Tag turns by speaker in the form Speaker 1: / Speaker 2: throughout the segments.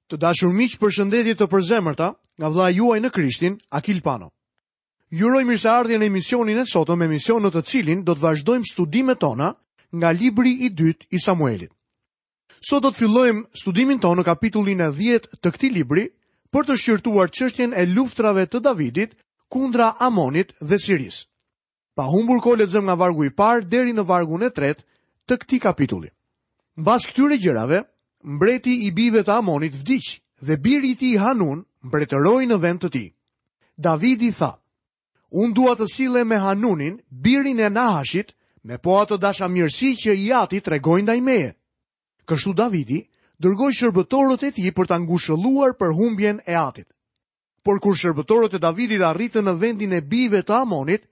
Speaker 1: Të dashur miq, përshëndetje të përzemërta nga vëllai juaj në Krishtin, Akil Pano. Ju uroj mirëseardhje në emisionin e sotëm, emision në të cilin do të vazhdojmë studimet tona nga libri i dytë i Samuelit. Sot do të fillojmë studimin tonë në kapitullin e 10 të këtij libri për të shqyrtuar çështjen e luftrave të Davidit kundra Amonit dhe Sirisë. Pa humbur kohë lexojmë nga vargu i parë deri në vargun e tretë të këtij kapitulli. Mbas këtyre gjërave, mbreti i bijve të Amonit vdiq dhe biri i tij Hanun mbretëroi në vend të tij. Davidi tha: Unë dua të sillem me Hanunin, birin e Nahashit, me po atë dashamirësi që i ati tregoi ndaj meje. Kështu Davidi dërgoi shërbëtorët e tij për ta ngushëlluar për humbjen e atit. Por kur shërbëtorët e Davidit arritën në vendin e bijve të Amonit,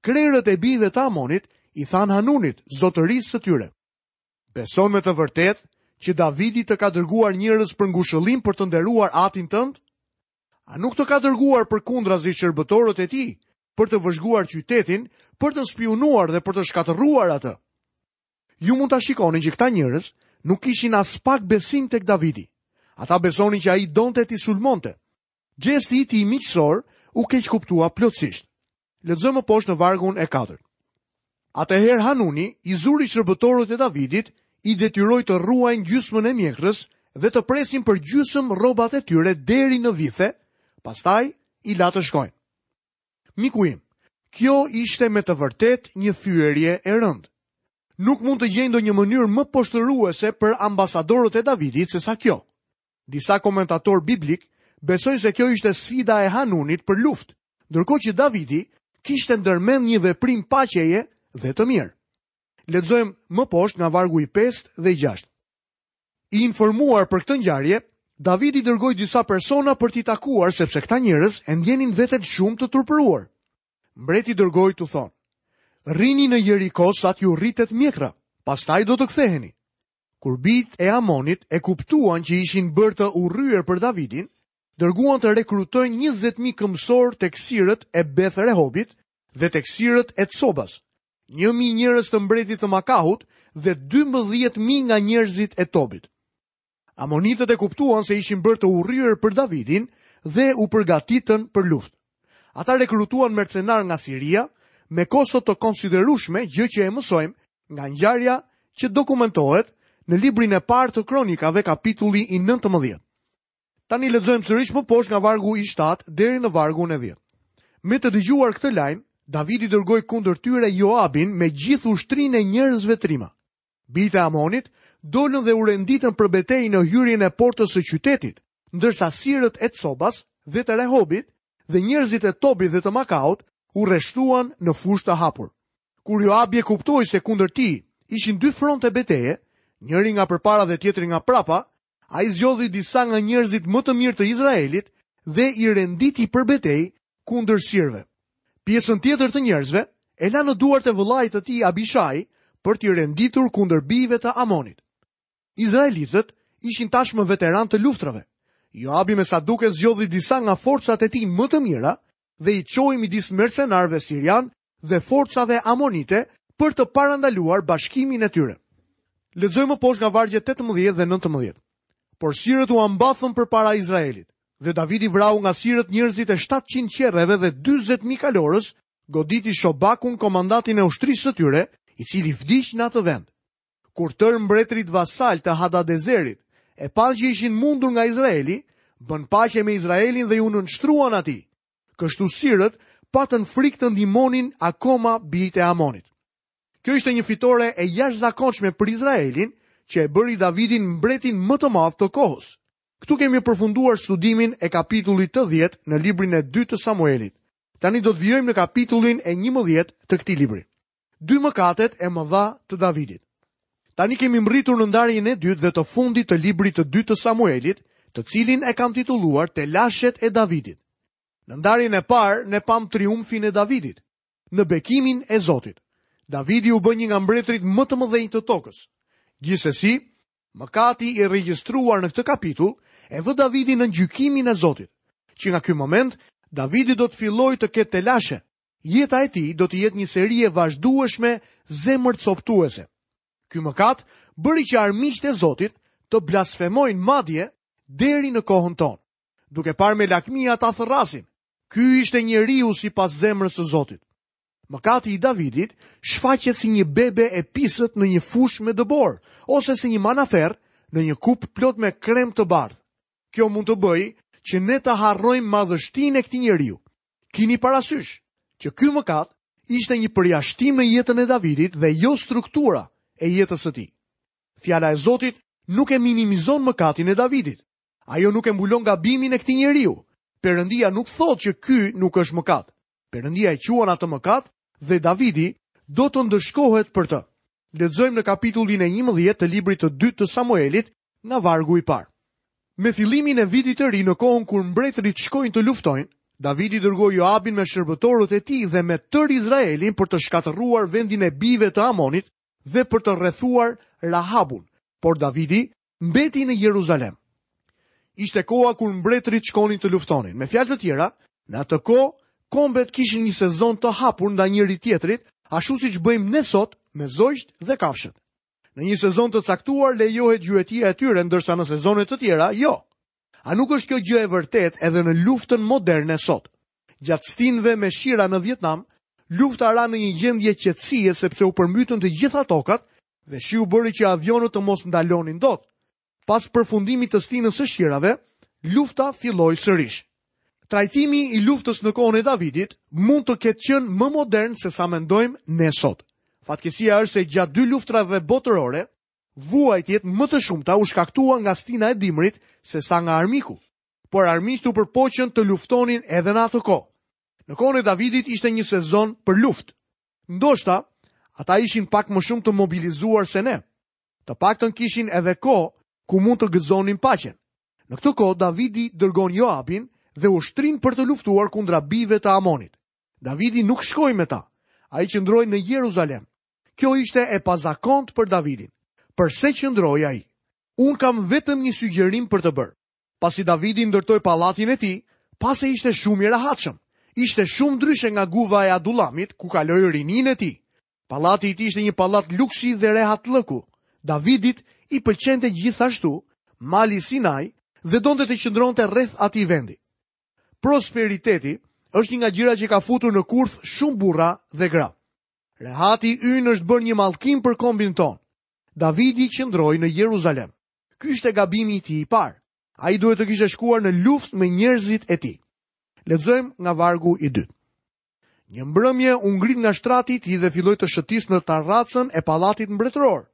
Speaker 1: krerët e bijve të Amonit i thanë Hanunit, zotërisë së tyre. Beson me të vërtetë që Davidi të ka dërguar njerëz për ngushëllim për të nderuar atin tënd? A nuk të ka dërguar përkundrazi shërbëtorët e tij për të vëzhguar qytetin, për të spiunuar dhe për të shkatërruar atë? Ju mund ta shikoni që këta njerëz nuk kishin aspak besim tek Davidi. Ata besonin që ai donte t'i sulmonte. Gjesti i tij miqësor u keqkuptua plotësisht. Lexojmë më poshtë në vargun e katërt. Atëherë Hanuni i zuri shërbëtorët e Davidit, i detyroi të rruajnë gjysmën e mjekrës dhe të presin për gjysmë rrobat e tyre deri në vithe, pastaj i la të shkojnë. Miku im, kjo ishte me të vërtetë një fyerje e rëndë. Nuk mund të gjej ndonjë mënyrë më poshtëruese për ambasadorët e Davidit sesa kjo. Disa komentatorë biblikë besojnë se kjo ishte sfida e Hanunit për luftë, ndërkohë që Davidi kishte ndërmend një veprim paqeje dhe të mirë. Lexojmë më poshtë nga vargu i 5 dhe i 6. I informuar për këtë ngjarje, Davidi dërgoi disa persona për t'i takuar sepse këta njerëz e ndjenin veten shumë të turpëruar. Mbreti dërgoi t'u thonë: Rrini në Jeriko sa t'ju rritet mjekra, pastaj do të ktheheni. Kur bijtë e Amonit e kuptuan që ishin bërë të urryer për Davidin, dërguan të rekrutojnë 20.000 këmbësorë tek sirët e Beth Rehobit dhe tek sirët e Cobas, 1.000 njerëz të mbretit të Makahut dhe 12.000 nga njerëzit e Tobit. Amonitët e kuptuan se ishin bërë të urryer për Davidin dhe u përgatitën për luftë. Ata rekrutuan mercenarë nga Siria me kosto të konsiderueshme, gjë që e mësojmë nga ngjarja që dokumentohet në librin e parë të Kronikave, kapitulli i 19. Tani lexojmë sërish më poshtë nga vargu i 7 deri në vargun e 10. Me të dëgjuar këtë lajm, Davidi dërgoi kundër tyre Joabin me gjithë ushtrinë e njerëzve trima. Bijtë e Amonit dolën dhe u renditën për betejë në hyrjen e portës së qytetit, ndërsa sirët e Cobas dhe të Rehobit dhe njerëzit e Tobit dhe të Makaut u rreshtuan në fushë të hapur. Kur Joabi e kuptoi se kundër tij ishin dy fronte beteje, njëri nga përpara dhe tjetri nga prapa, ai zgjodhi disa nga njerëzit më të mirë të Izraelit dhe i renditi për betejë kundër sirëve. Pjesën tjetër të njerëzve e la në duart e vëllait të tij Abishai për t'i renditur kundër bijve të Amonit. Izraelitët ishin tashmë veteranë të luftrave. Joabi me sa duket zgjodhi disa nga forcat e tij më të mira dhe i çoi midis mercenarëve sirianë dhe forcave amonite për të parandaluar bashkimin e tyre. Lexojmë më poshtë nga vargjet 18 dhe 19. Por sirët u mbathën përpara Izraelit. Dhe Davidi vrau nga sirët njerëzit e 700 qerreve dhe 40.000 kalorës, goditi Shobakun komandantin e ushtrisë së tyre, i cili vdiq në atë vend. Kur tërë mbretërit vasalë të Hadadezerit e panë që ishin mundur nga Izraeli, bënë paqe me Izraelin dhe iu nënshtruan atij. Kështu sirët patën frikë të ndihmonin akoma bijtë e Amonit. Kjo ishte një fitore e jashtëzakonshme për Izraelin, që e bëri Davidin mbretin më të madh të kohës. Këtu kemi përfunduar studimin e kapitullit të 10 në librin e dytë të Samuelit. Tani do të vijojmë në kapitullin e 11 të këtij libri. Dy mëkatet e mëdha të Davidit. Tani kemi mbërritur në ndarjen e dytë dhe të fundit të librit të dytë të Samuelit, të cilin e kam titulluar Telashet e Davidit. Në ndarjen e parë ne pamë triumfin e Davidit, në bekimin e Zotit. Davidi u bë një nga mbretërit më të mëdhenj të tokës. Gjithsesi, Mëkati i regjistruar në këtë kapitull e vë Davidin nën gjykimin e Zotit. Që nga ky moment, Davidi do të fillojë të ketë telashe. Jeta e tij do të jetë një seri e vazhdueshme zemërcoptuese. Ky mëkat bëri që armiqtë e Zotit të blasfemojnë madje. deri në kohën tonë. Duke parë me lakmi ata thërrasin. Ky ishte njeriu sipas zemrës së Zotit. Mëkati i Davidit shfaqet si një bebe e pisët në një fushë me dëborë ose si një manaferrë në një kupë plot me krem të bardhë. Kjo mund të bëjë që ne të harrojmë madhështinë e këtij njeriu. Kini parasysh që ky mëkat ishte një përjashtim në jetën e Davidit dhe jo struktura e jetës së tij. Fjala e Zotit nuk e minimizon mëkatin e Davidit. Ajo nuk e mbulon gabimin e këtij njeriu. Perëndia nuk thotë që ky nuk është mëkat. Perëndia e quan atë mëkat dhe Davidi do të ndëshkohet për të. Lexojmë në kapitullin e 11 të librit të dytë të Samuelit nga vargu i parë. Me fillimin e vitit të ri në kohën kur mbretërit shkojnë të luftojnë, Davidi dërgoi Joabin me shërbëtorët e tij dhe me tërë Izraelin për të shkatërruar vendin e bijve të Amonit dhe për të rrethuar Rahabun. Por Davidi mbeti në Jeruzalem. Ishte koha kur mbretërit shkonin të luftonin. Me fjalë të tjera, në atë kohë kombet kishin një sezon të hapur ndaj njëri-tjetrit, ashtu siç bëjmë ne sot me zogjtë dhe kafshët. Në një sezon të caktuar lejohet gjuetia e tyre, ndërsa në sezone të tjera jo. A nuk është kjo gjë e vërtetë edhe në luftën moderne sot? Gjatë stinëve me shira në Vietnam, lufta ra në një gjendje qetësie sepse u përmbytën të gjitha tokat dhe shiu bëri që avionët të mos ndalonin dot. Pas përfundimit të stinës së shirave, lufta filloi sërish. Trajtimi i luftës në kohën e Davidit mund të ketë qenë më modern se sa mendojmë ne sot. Fatkeqësia është se gjatë dy luftrave botërore, vuajtjet më të shumta u shkaktuan nga stina e dimrit se sa nga armiku. Por armiqtë u përpoqën të luftonin edhe në atë kohë. Në kohën e Davidit ishte një sezon për luftë. Ndoshta ata ishin pak më shumë të mobilizuar se ne. Të paktën kishin edhe kohë ku mund të gëzonin paqen. Në këtë kohë Davidi dërgon Joabin dhe ushtrinë për të luftuar kundra bijve të Amonit. Davidi nuk shkoi me ta. Ai qëndroi në Jeruzalem. Kjo ishte e pazakontë për Davidin. Përse qëndroi ai? Unë kam vetëm një sugjerim për të bërë. Pasi Davidi ndërtoi pallatin e tij, pa se ishte shumë i rehatshëm. Ishte shumë ndryshe nga guva e Adullamit, ku kaloi rininë e tij. Pallati i tij ishte një pallat luksi dhe rehatllëku. Davidit i pëlqente gjithashtu mali Sinai dhe donte të qëndronte rreth atij vendi. Prosperiteti është një nga gjërat që ka futur në kurth shumë burra dhe gra. Rehati ynë është bërë një mallkim për kombin tonë. Davidi qëndroi në Jeruzalem. Ky ishte gabimi i tij i parë. Ai duhet të kishte shkuar në luftë me njerëzit e tij. Lexojmë nga vargu i dytë. Një mbrëmje u ngrit nga shtrati i tij dhe filloi të shëtisë në tarracën e pallatit mbretëror.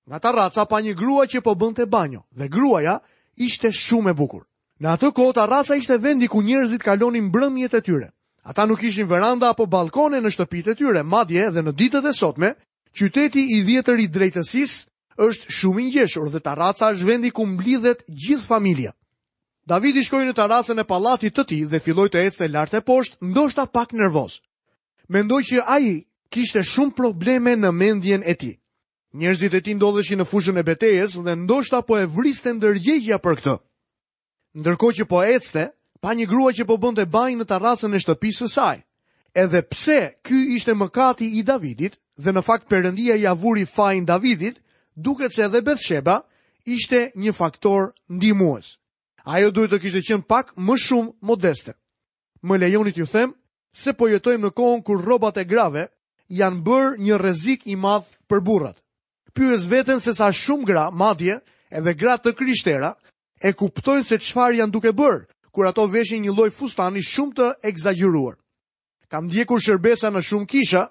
Speaker 1: Nga tarraca pa një grua që po bënte banjo dhe gruaja ishte shumë e bukur. Në atë kohë tarraca ishte vendi ku njerëzit kalonin mbrëmjet e tyre. Ata nuk kishin veranda apo ballkone në shtëpitë e tyre, madje edhe në ditët e sotme, qyteti i vjetër i drejtësisë është shumë i ngjeshur dhe tarraca është vendi ku mblidhet gjithë familja. Davidi shkoi në tarracën e pallatit të tij dhe filloi të ecte lart e poshtë, ndoshta pak nervoz. Mendoj që ai kishte shumë probleme në mendjen e tij. Njerëzit e tij ndodheshin në fushën e betejës dhe ndoshta po e vriste ndërgjegjja për këtë. Ndërkohë që po ecte, pa një grua që po bënte banjë në tarracën e shtëpisë së saj. Edhe pse ky ishte mëkati i Davidit dhe në fakt Perëndia ia vuri fajin Davidit, duket se edhe Bethsheba ishte një faktor ndihmues. Ajo duhet të kishte qenë pak më shumë modeste. Më lejoni t'ju them se po jetojmë në kohën kur rrobat e grave janë bërë një rrezik i madh për burrat. Pyes veten se sa shumë gra, madje edhe gra të krishtera, e kuptojnë se çfarë janë duke bërë, kur ato veshin një lloj fustani shumë të ekzagjeruar. Kam ndjekur shërbesa në shumë kisha,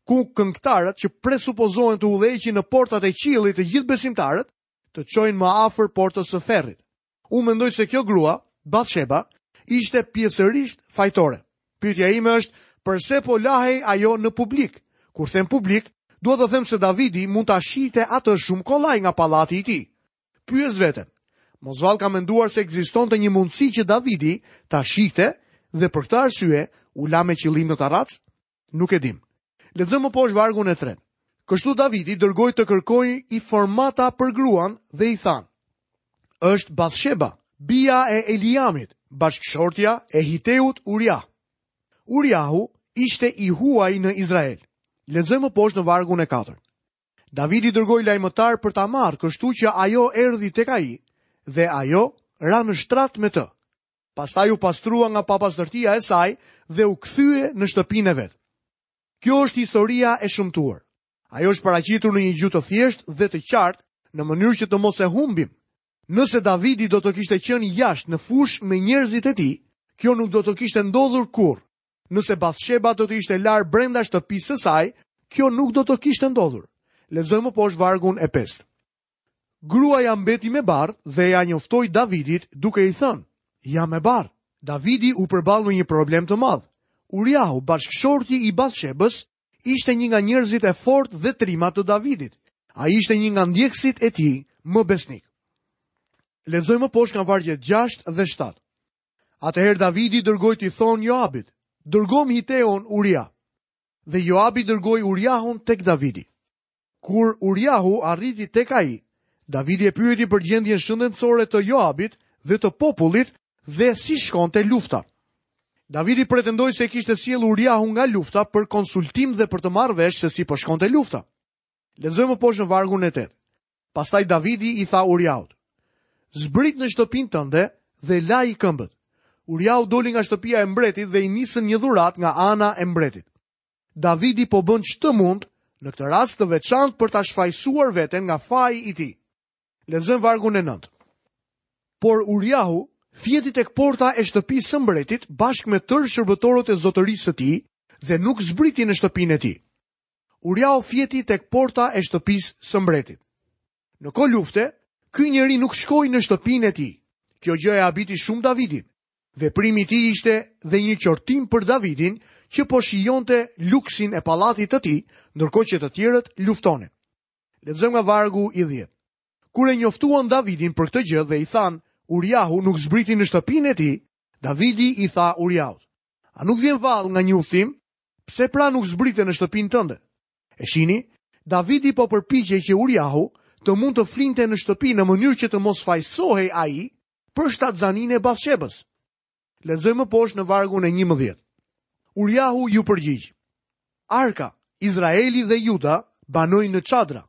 Speaker 1: ku këngëtarët që presupozohen të udhëheqin në portat e qiellit të gjithë besimtarët, të çojnë më afër portës së ferrit. Unë mendoj se kjo grua, Bathsheba, ishte pjesërisht fajtore. Pyetja ime është, përse po lahej ajo në publik? Kur them publik, dua të them se Davidi mund ta shihte atë shumë kollaj nga pallati i tij. Pyes veten, mos vallë ka menduar se ekzistonte një mundësi që Davidi ta shihte dhe për këtë arsye u la me qëllim në tarracë? Nuk e dimë. Lexojmë më poshtë vargun e tretë. Kështu Davidi dërgoi të kërkojë informata për gruan dhe i thanë: Është Bathsheba, bija e Eliamit, bashkëshortja e Hiteut Uriah. Uriahu ishte i huaj në Izrael. Lexojmë më poshtë në vargun e katërt. Davidi dërgoi lajmëtarë për ta marrë, kështu që ajo erdhi tek ai dhe ajo Ra në shtrat me të. Pastaj u pastrua nga papastërtia e saj dhe u kthye në shtëpinë e vet. Kjo është historia e shëmtuar. Ajo është paraqitur në një gjuhë të thjeshtë dhe të qartë, në mënyrë që të mos e humbim. Nëse Davidi do të kishte qenë jashtë në fushë me njerëzit e tij, kjo nuk do të kishte ndodhur kurrë. Nëse Bathsheba do të ishte larë brenda shtëpisë së saj, kjo nuk do të kishte ndodhur. Lexojmë më poshtë vargun e pestë. Gruaja mbeti me barrë dhe ia njoftoi Davidit duke i thënë, Jam me barrë. Davidi u përball me një problem të madh. Uriahu, bashkëshorti i Bathshebës, ishte një nga njerëzit e fortë dhe trima të Davidit. Ai ishte një nga ndjekësit e tij më besnikë. Lexojmë më poshtë nga vargjet 6 dhe 7. Atëherë Davidi dërgoi t'i thonë Joabit, dërgomë Hiteun Uria. Dhe Joabi dërgoi Uriahun tek Davidi. Kur Uriahu arriti tek ai, Davidi e pyeti për gjendjen shëndetësore të Joabit dhe të popullit dhe si shkonte lufta. Davidi pretendoi se e kishte sjellë Uriahun nga lufta për konsultim dhe për të marrë vesh se si po shkonte lufta. Lexojmë më poshtë në vargun e 8. Pastaj Davidi i tha Uriahut: Zbrit në shtëpinë tënde dhe laji këmbët. Uriahu doli nga shtëpia e mbretit dhe i nisën një dhuratë nga ana e mbretit. Davidi po bën ç'të mund në këtë rast të veçantë për ta shfajësuar veten nga faji i tij. Lexojmë vargun e 9. Por Uriahu fjeti tek porta e shtëpisë së mbretit bashkë me tërë shërbëtorët e zotërisë së tij dhe nuk zbriti në shtëpinë e tij. Uriahu fjeti tek porta e shtëpisë së mbretit. Në kohë lufte, ky njeri nuk shkoi në shtëpinë e tij. Kjo gjë e habiti shumë Davidin. Veprimi i tij ishte dhe një qortim për Davidin që po shijonte luksin e pallatit të tij, ndërkohë që të tjerët luftonin. Lexojmë nga vargu i 10. Kur e njoftuan Davidin për këtë gjë dhe i thanë, Uriahu nuk zbriti në shtëpinë e tij, Davidi i tha Uriahut: A nuk vjen vallë nga një udhëtim? Pse pra nuk zbrite në shtëpinë tënde? E shihni, Davidi po përpiqej që Uriahu të mund të flinte në shtëpi në mënyrë që të mos fajësohej ai për shtatzaninë e Bathshebës. Lexojmë më poshtë në vargun e 11. Uriahu iu përgjigj. Arka, Izraeli dhe Juda banojnë në çadra.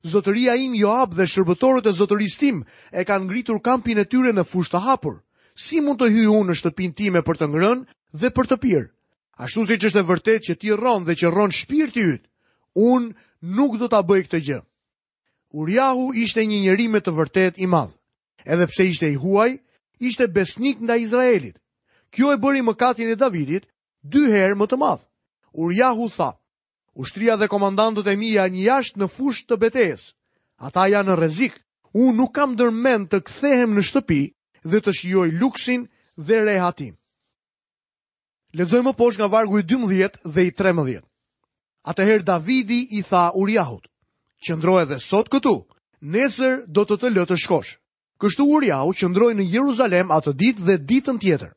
Speaker 1: Zotëria im Joab dhe shërbëtorët e zotërisë tim e kanë ngritur kampin e tyre në fushë të hapur. Si mund të hyj unë në shtëpinë time për të ngrënë dhe për të pirë? Ashtu siç është e vërtetë që ti rron dhe që rron shpirti yt, unë nuk do ta bëj këtë gjë. Uriahu ishte një njeri me të vërtetë i madh. Edhe pse ishte i huaj, ishte besnik ndaj Izraelit. Kjo e bëri mëkatin e Davidit dy herë më të madh. Uriahu tha, ushtria dhe komandantët e mi janë jashtë në fushë të betejës. Ata janë në rrezik. Unë nuk kam ndërmend të kthehem në shtëpi dhe të shijoj luksin dhe rehatinë. Lexojmë më poshtë nga vargu i 12 dhe i 13. Atëherë Davidi i tha Uriahut, qëndro edhe sot këtu, nesër do të të lë të shkosh. Kështu Uriahu qëndroi në Jeruzalem atë ditë dhe ditën tjetër.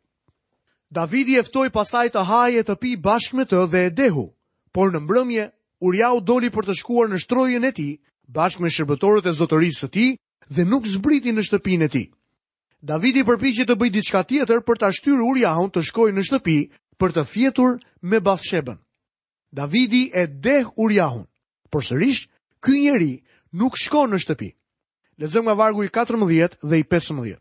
Speaker 1: Davidi e ftoi pastaj të hajë e të pijë bashkë me të dhe e dehu, por në mbrëmje Uriahu doli për të shkuar në shtrojën e tij, bashkë me shërbëtorët e zotërisë së tij dhe nuk zbriti në shtëpinë e tij. Davidi përpiqet të bëjë diçka tjetër për ta shtyrë Uriahun të shkojë në shtëpi për të fjetur me Bathshebën. Davidi e deh Uriahun, por sërish ky njeri nuk shkon në shtëpi. Lexojmë nga vargu i 14 dhe i 15.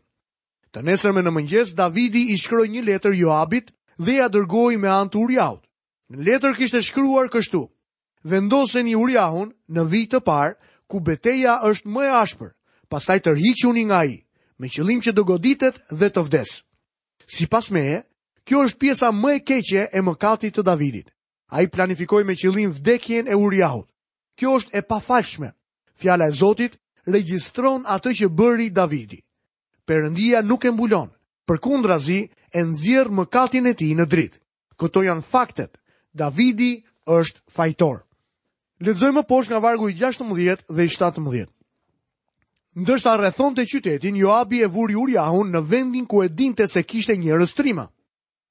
Speaker 1: Të nesërmen në mëngjes Davidi i shkroi një letër Joabit dhe ia dërgoi me anë të Uriahut. Në letër kishte shkruar kështu: Vendoseni Uriahun në vijë të parë, ku beteja është më e ashpër, pastaj tërhiquni nga ai, me qëllim që të goditet dhe të vdesë. Sipas meje, kjo është pjesa më e keqe e mëkatit të Davidit. Ai planifikoi me qëllim vdekjen e Uriahut. Kjo është e pafalshme. Fjala e Zotit regjistron atë që bëri Davidi. Perëndia nuk e mbulon, përkundrazi e nxjerr mëkatin e tij në dritë. Këto janë faktet. Davidi është fajtor. Lexojmë më poshtë nga vargu i 16 dhe i 17. Ndërsa rrethonte qytetin, Joabi e vuri Uriahun në vendin ku e dinte se kishte njerëz trima.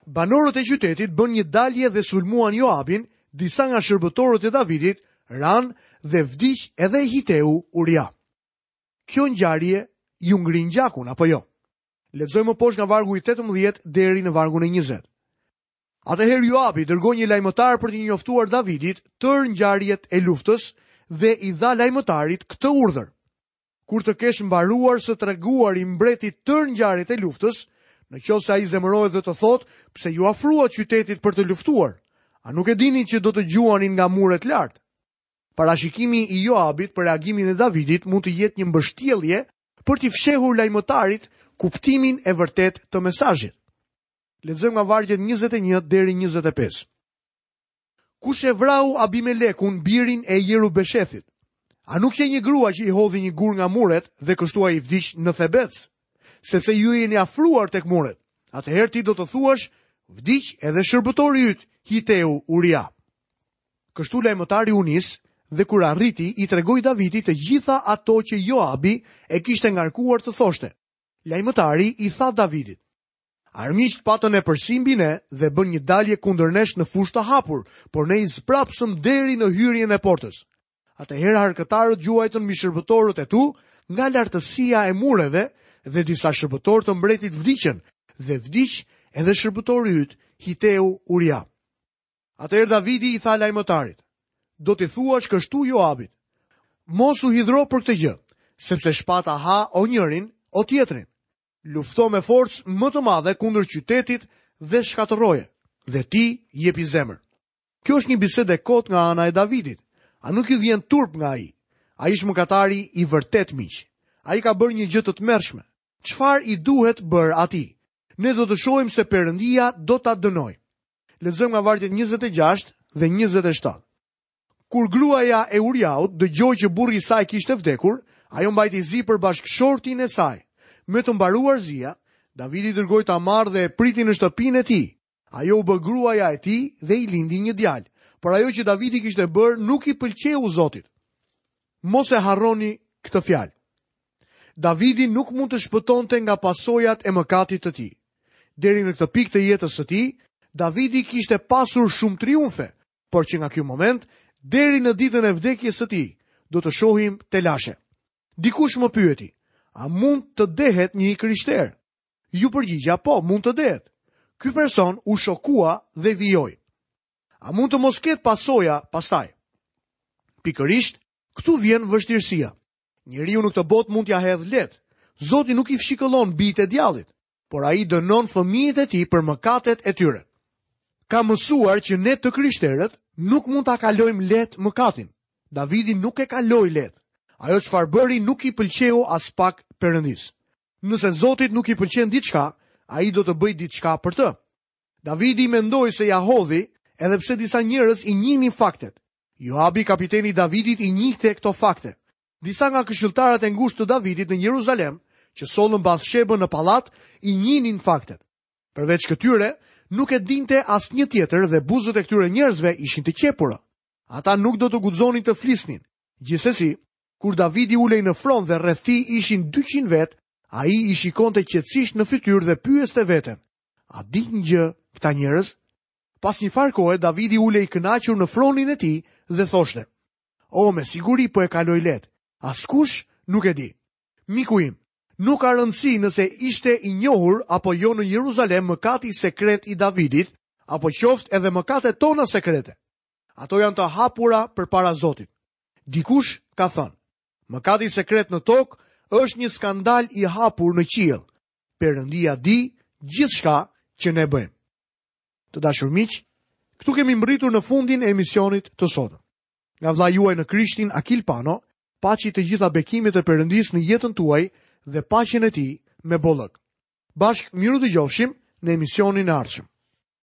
Speaker 1: Banorët e qytetit bënë një dalje dhe sulmuan Joabin, disa nga shërbëtorët e Davidit ranë dhe vdiq edhe Hiteu Uria. Kjo ngjarje ju ngrin gjakun apo jo? Lexojmë më poshtë nga vargu i 18 deri në vargun e 20. Atëherë Joabi dërgoi një lajmëtar për t'i njoftuar Davidit tërë ngjarjet e luftës dhe i dha lajmëtarit këtë urdhër. Kur të kesh mbaruar së treguari mbretit tërë ngjarjet e luftës, në qoftë se ai zemërohet dhe të thotë, pse iu afruat qytetit për të luftuar, a nuk e dini që do të gjuanin nga muret lart? Parashikimi i Joabit për reagimin e Davidit mund të jetë një mbështjellje për t'i fshehur lajmëtarit kuptimin e vërtetë të mesazhit. Lexojmë nga vargjet 21 deri 25. Kush e vrau Abimelekun, birin e Jerubeshethit? A nuk qe një grua që i hodhi një gur nga muret dhe kështu ai vdiq në Thebec? Sepse ju jeni afruar tek muret. Atëherë ti do të thuash, vdiq edhe shërbëtori yt, Hiteu Uria. Kështu lajmëtari u nis dhe kur arriti i tregoi Davidit të gjitha ato që Joabi e kishte ngarkuar të thoshte. Lajmëtari i tha Davidit: Armiqtë patën epërsi mbi ne dhe bënë një dalje kundër nesh në fushë të hapur, por ne i zmbrapsëm deri në hyrjen e portës. Atëherë harkëtarët gjuajtën mbi shërbëtorët e tu nga lartësia e mureve dhe disa shërbëtorë të mbretit vdiqën dhe vdiq edhe shërbëtori yt, Hiteu Uria. Atëherë Davidi i tha lajmëtarit, do t'i thuash kështu Joabit, mos u hidhro për këtë gjë, sepse shpata ha o njërin, o tjetrin. Lufto me forcë më të madhe kundër qytetit dhe shkatërroje, dhe ti jepi zemër. Kjo është një bisedë e kotë nga ana e Davidit. A nuk ju vjen turp nga ai? Ai është mëkatari i vërtetë miq. Ai ka bërë një gjë të tmerrshme. Çfarë i duhet bërë atij? Ne do të shohim se Perëndia do ta dënojë. Lexojmë nga vargjet 26 dhe 27. Kur gruaja e Uriahut dëgjoi që burri i saj kishte vdekur, ajo mbajti zi për bashkëshortin e saj. Me të mbaruar zia, Davidi dërgoi ta marrë dhe e priti në shtëpinë e tij. Ajo u bë gruaja e tij dhe i lindi një djalë. Por ajo që Davidi kishte bërë nuk i pëlqeu Zotit. Mos e harroni këtë fjalë. Davidi nuk mund të shpëtonte nga pasojat e mëkatit të tij. Deri në këtë pikë të jetës së tij, Davidi kishte pasur shumë triumfe, por që nga ky moment deri në ditën e vdekjes së tij do të shohim telashe. Dikush më pyeti, a mund të dehet një i krishterë? Iu përgjigja, po, mund të dehet. Ky person u shokua dhe vijoi. A mund të mos ketë pasoja pastaj? Pikërisht, këtu vjen vështirësia. Njeriu në këtë botë mund t'ia hedhë lehtë. Zoti nuk i fshikëllon bijtë e djallit. por ai dënon fëmijët e tij për mëkatet e tyre. Kam mësuar që ne të krishterët nuk mund ta kalojmë lehtë mëkatin. Davidi nuk e kaloi lehtë. Ajo çfarë bëri nuk i pëlqeu aspak Perëndisë. Nëse Zotit nuk i pëlqen diçka, ai do të bëjë diçka për të. Davidi mendoi se ia hodhi, edhe pse disa njerëz i njihnin faktet. Joabi, kapiteni i Davidit, i njihte këto fakte. Disa nga këshilltarët e ngushtë të Davidit në Jeruzalem, që sollën Bathshebën në pallat, i njihnin faktet. Përveç këtyre, nuk e dinte asnjë tjetër dhe buzët e këtyre njerëzve ishin të qepura. Ata nuk do të guxonin të flisnin. Gjithsesi, kur Davidi ulej në fron dhe rreth tij ishin 200 vetë, ai i shikonte qetësisht në fytyrë dhe pyeste veten: A dinë gjë këta njerëz? Pas një farë kohe, Davidi ulej i kënaqur në fronin e tij dhe thoshte: O, me siguri po e kaloj lehtë. Askush nuk e di. Miku im, nuk ka rëndësi nëse ishte i njohur apo jo në Jeruzalem mëkati sekret i Davidit, apo qoftë edhe mëkatet tona sekrete. Ato janë të hapura përpara Zotit. Dikush ka thënë, mëkati sekret në tokë është një skandal i hapur në qiell. Perëndia di gjithçka që ne bëjmë. Të dashur miq, këtu kemi mbërritur në fundin e emisionit të sotëm. Nga vëllai juaj në Krishtin Akil Pano, paçi të gjitha bekimet e Perëndisë në jetën tuaj dhe paqen e tij me bollëk. Bashkë mirudëgjofshim në emisionin e ardhshëm.